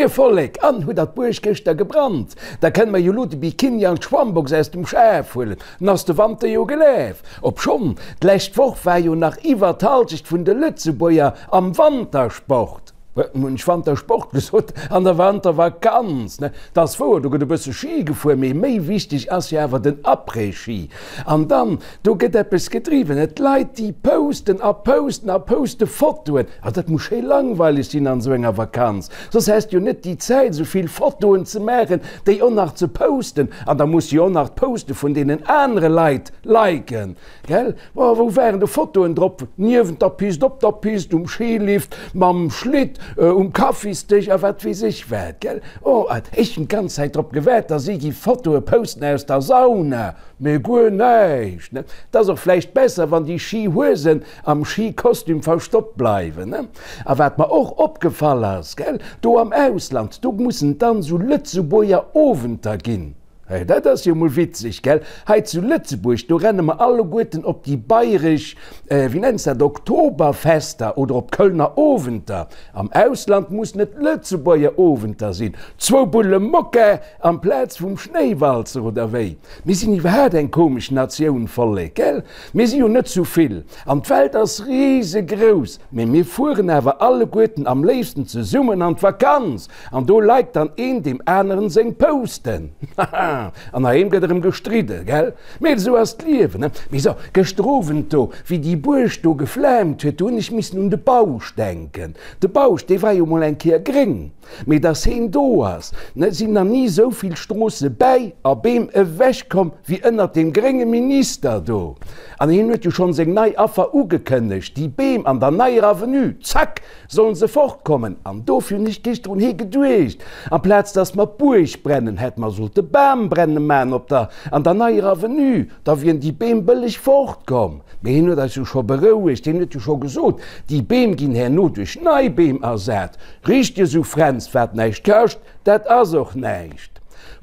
Moie Vollek, an hutt der d'Buerg gëschter gebrannt? Da kënne mer jo lo de Bikini an d'Schwammbox aus dem Schaf huelen, 'n ass de Wanter jo gelaf. Obschonn, d'lescht Woch war jo nach iwwer d'Halschecht vun de Lëtzebuerger am Wantersport. Hunn ech Wantersport gesot? An der Wantervakanz, ne? 't ass wouer, do gëtt e bësse Ski gefuer, mee méi wichteg ass jo awer den Après-Ski. An dann, do gëtt eppes gedriwwen, ne? D'Leit, déi posten a posten a poste Fotoen. A dat muss schéi langweileg sinn an esou enger Vakanz, soss häss de jo net déi Zäit, esou vill Fotoen ze maachen, déi och nach ze posten. An da muss de jo och nach d'Poste vun deenen anere Leit liken. Gell? Oh, wou waren do Fotoen drop? Niewent der Pist, op der Pist, um Skilift, mam Schlitt, um Kaffisdësch a wat weess ech wat, gell? Oh, ech hunn d'ganz Zäit drop gewaart, dass si gi Fotoe posten aus der Sauna, mee guer näischt, ne? Et ass och vläicht besser, wann déi Skihuesen am Skikostüm verstoppt bleiwen, ne? A wat mer och opgefall ass, gell, do am Ausland, do mussen et dann esou Lëtzebuerger Owenter ginn. Hey, dat ass jo mol witzeg, gell? Hei zu Lëtzebuerg, do renne mer alleguerten op déi bayresch, wéi nenns dat, Oktoberfester oder op d'Kölner Owenter. Am Ausland mussen et Lëtzebuerger Owenter sinn. Zwou Bulle Mokka amplaz vum Schnéiwalzer, oder wéi? Mir sinn iwwerhaat eng komesch Natioun, Vollek, gell? Mir si jo net zu vill an d'Welt ass risegrouss, mee mir fueren awer alleguerten am léifsten zesummen an d'Vakanz. An do liked dann een deem aneren seng Posten. Haha, an heiheem gëtt erëm gestridde, gell? Mee esou ass d'Liewen, ne? Mee so, gëschter Owend do, wéi déi Buerg do geflaamt huet, do hunn ech missen un de Bausch denken. De Bausch, dee war jo mol eng Kéier gréng. Mee dass heen do ass, ne, sinn nach ni esou vill Stroosse bäi a Beem ewechkomm wéi ënnert deem grénge Minister do. An heen huet jo schonn seng nei Affer ugekënnegt, déi Beem an der neier Avenue, zack! Sollen se fortkommen? An dofir hunn ech géschter un hee geduecht, amplaz dass mer d'Buerg brennen, hätte mer sollte Bambrenne man op der an der neier Avenue, da wieren déi Beem bëlleg fortkomm. Mee hien huet eis jo scho berouegt, hien huet jo scho gesot, déi Beem ginn herno duerch nei Beem ersat. Richteg esou, Fränz, wat näischt kascht, dat ass och näischt.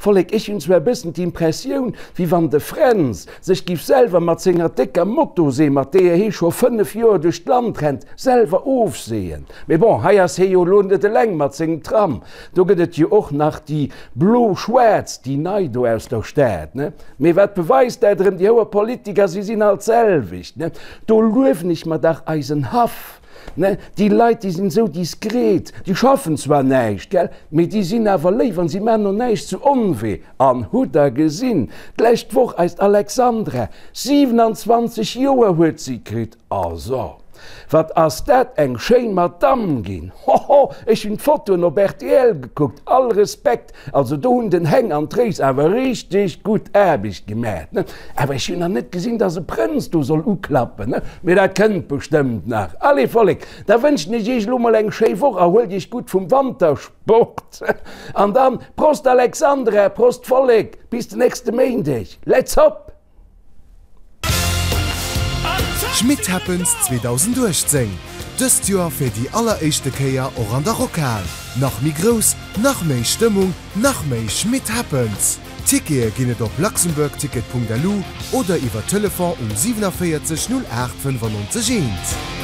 Vollek, ech hunn zwar e bëssen d'Impressioun, wéi wann de Fränz sech giff selwer mat senger décker Motosee, mat deeër hee scho 5 Joer duerch d'Land rennt, selwer ofseeën. Mee bon, hei ass hee jo elo net eleng mat sengem Tram, do gëtt et jo och nach déi blo-schwaarz, déi nei do aus der Stad, ne? Mee wat beweist dat erëm, déi houer Politiker, si sinn alt d'selwecht, ne? Do luewen ech mer dach eisen Haff. Ne, déi Leit, déi sinn esou diskret, déi schaffen zwar näischt, gell, mee déi sinn awer léif an si maachen och näischt zu Onwee. An hutt Der gesinn, d'lescht Woch eist Alexandra, 27 Joer huet si kritt, a so, wat ass dat eng schéin Madamm ginn, hoho, ech hunn d'Fotoen op rtl gekuckt, all Respekt. Also do hunn den Heng an d'Réis awer richteg gutt Aarbecht gemat, ne? Awer ech hunn nach net gesinn, dass e Prënz do soll uklappen, ne? Mee dat kënnt bestëmmt nach. Allez Vollek, da wënschen ech iech elo mol eng schéi Woch, erhuelt iech gutt vum Wantersport an dann Prost Alexandra, Prost Vollek, bis den nächste Méindeg, let's hop! Schmitt Happens 2018, dëst Joer fir déi alleréischte Kéier och an der Rockhal. Nach méi grouss, nach méi Stëmmung, nach méi Schmitt Happens! Tickete ginn et op luxembourgticket.lu oder iwwer Telefon um 47 08 95 1.